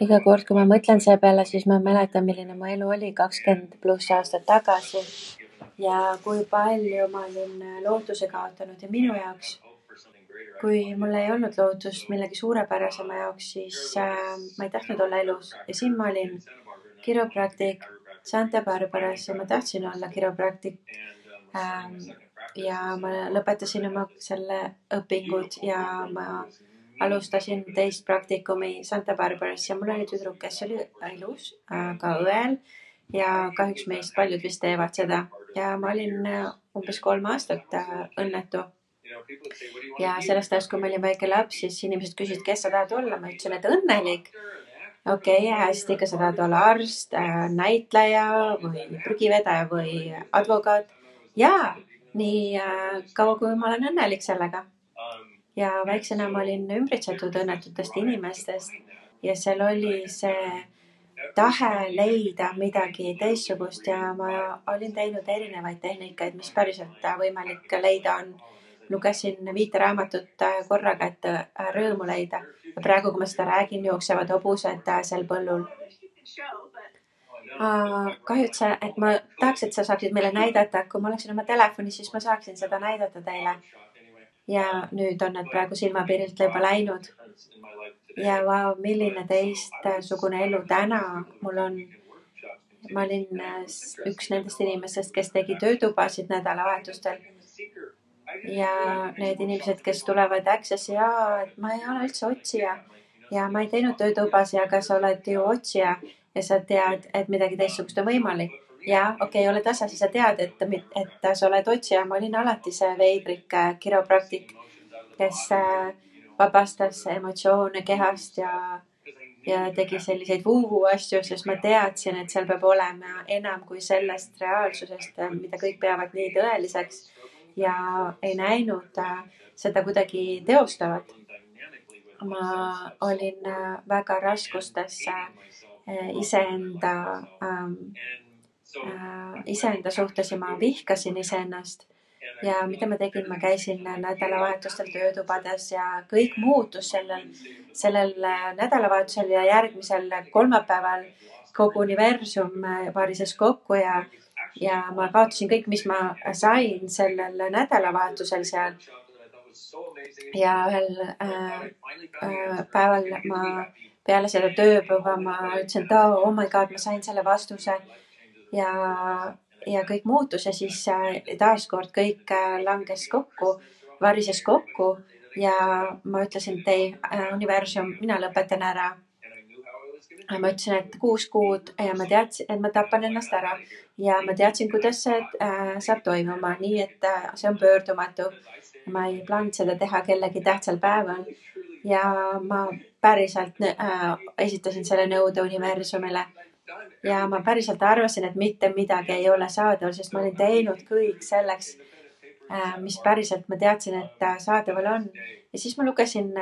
Iga kord, kui ma mõtlen selle peale, siis ma mäletan, milline mu elu oli 20+ aastat tagasi ja kui palju ma olin lootuse kaotanud ja minu jaoks, kui mul ei olnud lootust millegi suurepärasema jaoks, siis ma ei tahtnud olla elus ja siin ma olin kiropraktik Santa Barbaras ja ma tahtsin olla kiropraktik ja ma lõpetasin oma selle õpingud ja ma alustasin teist praktikumi Santa Barbaras ja mul oli tüdruk, kes oli ilus, ka õel ja kahjuks meist paljud vist teevad seda ja ma olin umbes 3 aastat õnnetu. Ja sellest ajast, kui ma olin väike laps, siis inimesed küsisid, kes sa tahad olla. Ma ütlesin, et õnnelik. Okei, hästi, kas sa tahad olla arst, näitleja või prügivedaja või advokaat? Jaa, nii kaua, kui ma olen õnnelik sellega. Ja väiksena ma olin ümbritsetud õnnetutest inimestest ja seal oli see tahe leida midagi teistsugust ja ma olin teinud erinevaid tehnikaid, mis päriselt võimalik leida on. Lugesin 5 raamatut korraga, et rõõmu leida. Ja praegu, kui ma seda räägin, jooksevad hobused seal põllul. Kahjuks, et ma tahaks, et sa saaksid meile näidata. Kui ma oleksin oma telefoni, siis ma saaksin seda näidata teile. Ja nüüd on need praegu silmapiirilt juba läinud. Ja vau, milline teistsugune elu täna mul on. Ma olin üks nendest inimestest, kes tegi töötubasid nädalavahetustel. Ja need inimesed, kes tulevad Accessi, et ma ei ole üldse otsija ja ma ei teinud töötubasi, aga sa oled ju otsija ja sa tead, et midagi teistsugust on võimalik. Ja okei, ole tasa, siis sa tead, et sa oled otsija. Ma olin alati see veidrik kiropraktik, kes vabastas emotsioone kehast ja tegi selliseid vuu asju, sest ma teadsin, et seal peab olema enam kui sellest reaalsusest, mida kõik peavad nii tõeliseks. Ja ei näinud seda kuidagi teostavat. Ma olin väga raskustes iseenda suhtes ja ma vihkasin iseennast. Ja mida ma tegin, ma käisin nädalavahetustel töötubades ja kõik muutus sellel nädalavahetusel ja järgmisel kolmapäeval kogu universum varises kokku ja ma kaotasin kõik, mis ma sain sellel nädalavahetusel seal. Ja ühel päeval ma peale seda tööpäeva ma ütlesin, et oh my god, ma sain selle vastuse ja kõik muutus ja siis taaskord kõik langes kokku, varises kokku ja ma ütlesin, et ei, universum, mina lõpetan ära. Ma ütlesin, et 6 kuud ja ma teadsin, et ma tapan ennast ära ja ma teadsin, kuidas see saab toimuma, nii et see on pöördumatu. Ma ei plaaninud seda teha kellegi tähtsal päeval ja ma päriselt esitasin selle nõude universumile ja ma päriselt arvasin, et mitte midagi ei ole saadaval, sest ma olin teinud kõik selleks, mis päriselt ma teadsin, et saadaval on. Ja siis ma lugesin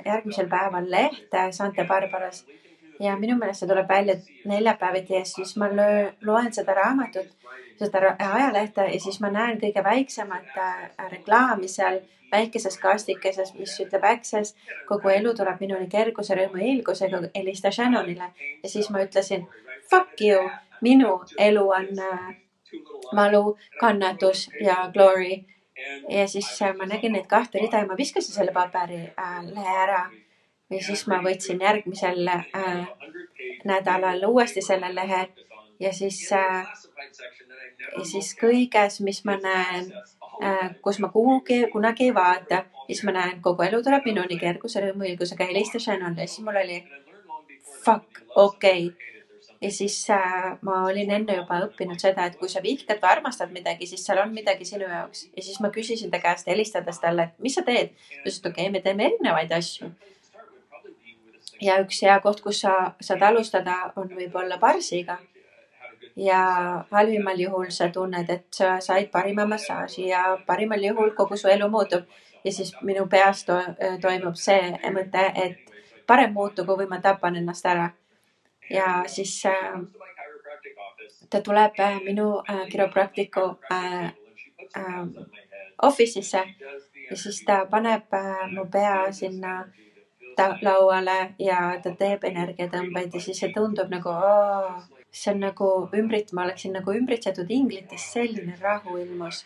järgmisel päeval lehte Santa Barbaras ja minu meelest see tuleb välja neljapäeviti ja siis ma loen seda raamatut, seda ajalehte ja siis ma näen kõige väiksemat reklaami seal väikeses kastikeses, mis ütleb Access, kogu elu tuleb minuni kerguse, rõõmu ja ilgusega, helista Shannonile. Ja siis ma ütlesin, fuck you, minu elu on valu, kannatus ja glory. Ja siis ma nägin neid 2 rida ja ma viskasin selle paberi lehe ära. Ja siis ma võtsin järgmisel nädalal uuesti selle lehe ja siis kõiges, mis ma näen, kus ma kunagi ei vaata, siis ma näen, kogu elu tuleb minuni kerguse, rõõmu, ilgusega, helista Shannonile. Siis mul oli fuck, okei. Ja siis ma olin enne juba õppinud seda, et kui sa vihkad või armastad midagi, siis seal on midagi sinu jaoks. Ja siis ma küsisin ta käest helistades talle, et mis sa teed? Ta ütles, et okei, me teeme erinevaid asju. Ja üks hea koht, kus sa saad alustada, on võib-olla barsiga. Ja halvimal juhul sa tunned, et sa said parima massaaži ja parimal juhul kogu su elu muutub. Ja siis minu peas toimub see mõte, et parem muutugu või ma tapan ennast ära. Ja siis ta tuleb minu kiropraktiku office'isse ja siis ta paneb mu pea sinna lauale ja ta teeb energiatõmbeid ja siis see tundub nagu, see on nagu ma oleksin nagu ümbritsetud inglitest, selline rahu ilmus.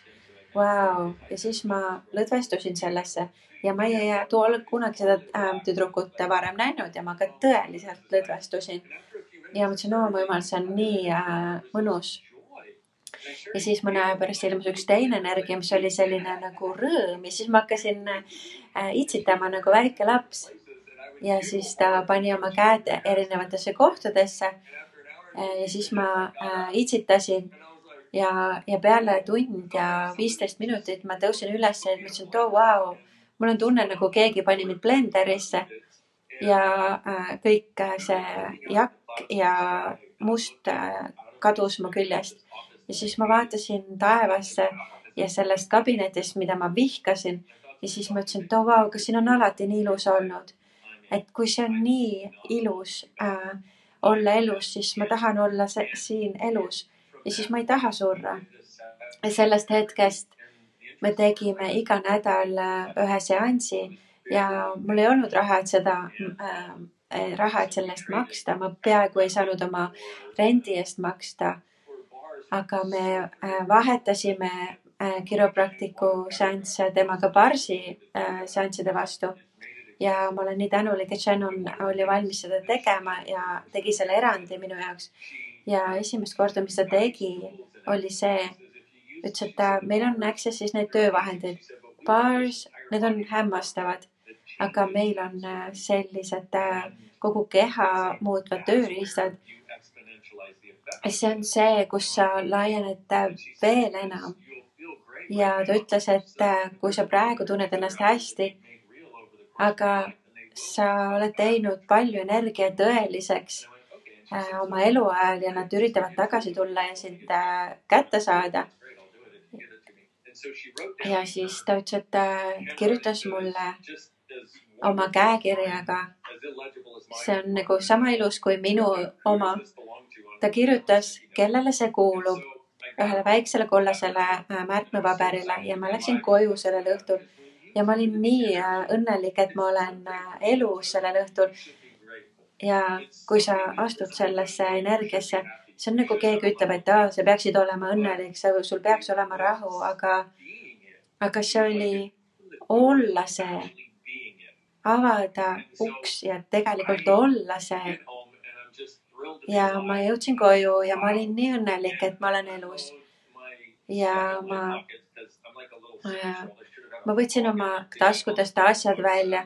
Vau. Ja siis ma lõdvestusin sellesse ja ma ei ole kunagi seda tüdrukut varem näinud ja ma ka tõeliselt lõdvestusin. Ja mõtlesin, mu jumal, see on nii mõnus. Ja siis mõne aja pärast ilmus üks teine energia, mis oli selline nagu rõõm ja siis ma hakkasin itsitama nagu väike laps. Ja siis ta pani oma käed erinevatesse kohtadesse ja siis ma itsitasin ja peale tund ja 15 minutit ma tõusin üles ja mõtlesin, et vau, mul on tunne nagu keegi pani mind blenderisse ja kõik see jakk ja must kadus mu küljest. Ja siis ma vaatasin taevasse ja sellest kabinetist, mida ma vihkasin ja siis ma ütlesin, et vau, kas siin on alati nii ilus olnud. Et kui see on nii ilus olla elus, siis ma tahan olla siin elus ja siis ma ei taha surra. Ja sellest hetkest me tegime iga nädal ühe seansi ja mul ei olnud raha, et sellest maksta. Ma peaaegu ei saanud oma rendi eest maksta. Aga me vahetasime kiropraktiku seansse temaga barsi seansside vastu. Ja ma olen nii tänulik, et Shannon oli valmis seda tegema ja tegi selle erandi minu jaoks. Ja esimest korda, mis ta tegi, oli see, ütles, et meil on access'is need töövahendid. Bars, need on hämmastavad, aga meil on sellised kogu keha muutvad tööriistad. See on see, kus sa laiened veel enam. Ja ta ütles, et kui sa praegu tunned ennast hästi, aga sa oled teinud palju energia tõeliseks oma eluajal ja nad üritavad tagasi tulla ja sind kätte saada. Ja siis ta ütles, et kirjutas mulle oma käekirjaga. See on nagu sama ilus kui minu oma. Ta kirjutas, kellele see kuulub, ühele väiksele kollasele märkmepaberile ja ma läksin koju sellel õhtul. Ja ma olin nii õnnelik, et ma olen elus sellel õhtul. Ja kui sa astud sellesse energiasse, see on nagu keegi ütleb, et sa peaksid olema õnnelik, sul peaks olema rahu, aga see oli olla see, avada uks ja tegelikult olla see. Ja ma jõudsin koju ja ma olin nii õnnelik, et ma olen elus. Ja ma võtsin oma taskudest asjad välja.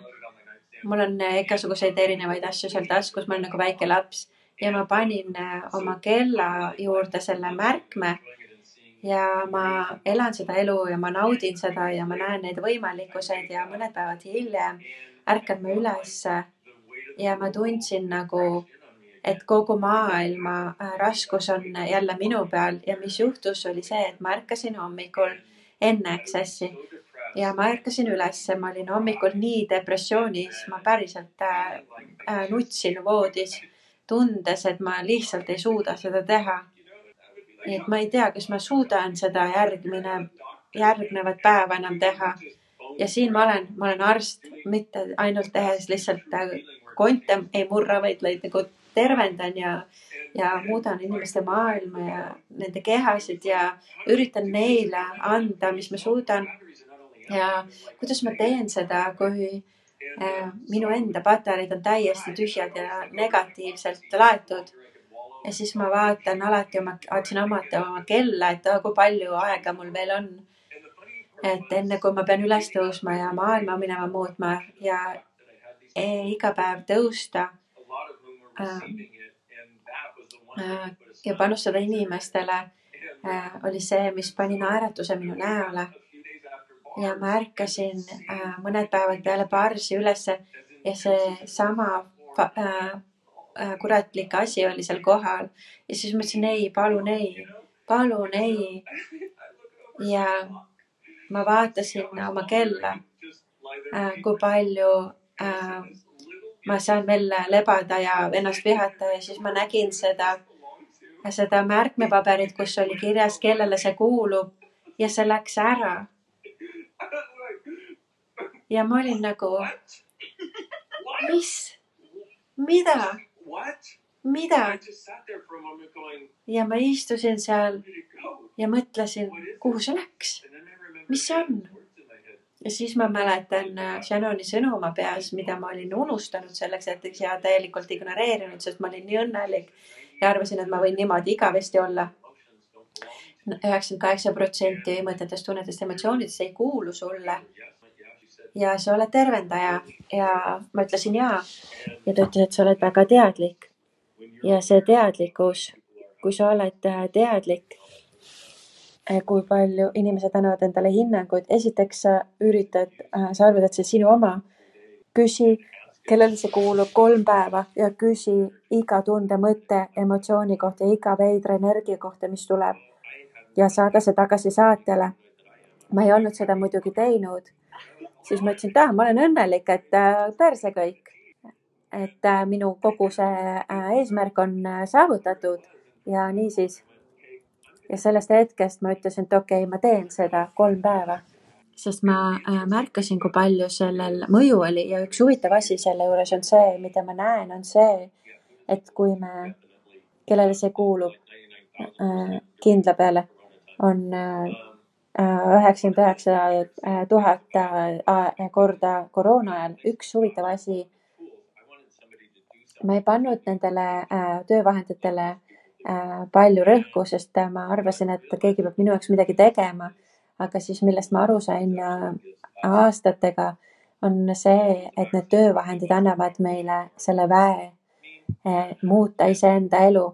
Mul on igasuguseid erinevaid asju seal taskus, ma olen nagu väike laps ja ma panin oma kella juurde selle märkme ja ma elan seda elu ja ma naudin seda ja ma näen neid võimalikkuseid ja mõned päevad hiljem ärkan ma üles ja ma tundsin nagu, et kogu maailma raskus on jälle minu peal ja mis juhtus oli see, et ma ärkasin hommikul enne access'i. Ja ma ärkasin üles, ma olin hommikul nii depressioonis, ma päriselt nutsin voodis, tundes, et ma lihtsalt ei suuda seda teha. Nii et ma ei tea, kas ma suudan seda järgnevat päeva enam teha. Ja siin ma olen arst, mitte ainult tehes lihtsalt konte ei murra, vaid nagu tervendan ja muudan inimeste maailma ja nende kehasid ja üritan neile anda, mis ma suudan. Ja kuidas ma teen seda, kui minu enda patareid on täiesti tühjad ja negatiivselt laetud. Ja siis ma vaatasin alati oma kella, et kui palju aega mul veel on. Et enne kui ma pean üles tõusma ja maailma minema muutma ja iga päev tõusta ja panustada inimestele oli see, mis pani naeratuse minu näole. Ja ma ärkasin mõned päevad peale barsi ülesse ja see sama kuratlik asi oli seal kohal. Ja siis ma ütlesin, palun ei. Ja ma vaatasin oma kella, kui palju ma saan veel lebada ja ennast vihata ja siis ma nägin seda märkmepaberit, kus oli kirjas, kellele see kuulub ja see läks ära. Ja ma olin nagu, mis? Mida? Ja ma istusin seal ja mõtlesin, kuhu see läks? Mis see on? Ja siis ma mäletan Shannoni sõnu oma peas, mida ma olin unustanud selleks hetkeks ja täielikult ignoreerinud, sest ma olin nii õnnelik ja arvasin, et ma võin niimoodi igavesti olla. 98% mõtetest, tunnetest, emotsioonidest ei kuulu sulle. Ja sa oled tervendaja ja ma ütlesin jaa. Ja ta ütles, et sa oled väga teadlik. Ja see teadlikkus, kui sa oled teadlik, kui palju inimesed annavad endale hinnanguid. Esiteks sa arvad, et see sinu oma. Küsi, kellele see kuulub 3 päeva ja küsi iga tunde, mõtte, emotsiooni kohta, iga veidra energia kohta, mis tuleb. Ja saada see tagasi saatjale. Ma ei olnud seda muidugi teinud. Siis ma ütlesin, et ma olen õnnelik, et perse kõik. Et minu kogu see eesmärk on saavutatud ja niisiis. Ja sellest hetkest ma ütlesin, et okei, ma teen seda 3 päeva. Sest ma märkasin, kui palju sellel mõju oli ja üks huvitav asi selle juures on see, mida ma näen, on see, et kui me, kellele see kuulub kindla peale, on 99 000 korda koroona ajal. Üks huvitav asi, ma ei pannud nendele töövahenditele palju rõhku, sest ma arvasin, et keegi peab minu jaoks midagi tegema. Aga siis millest ma aru sain aastatega on see, et need töövahendid annavad meile selle väe muuta iseenda elu.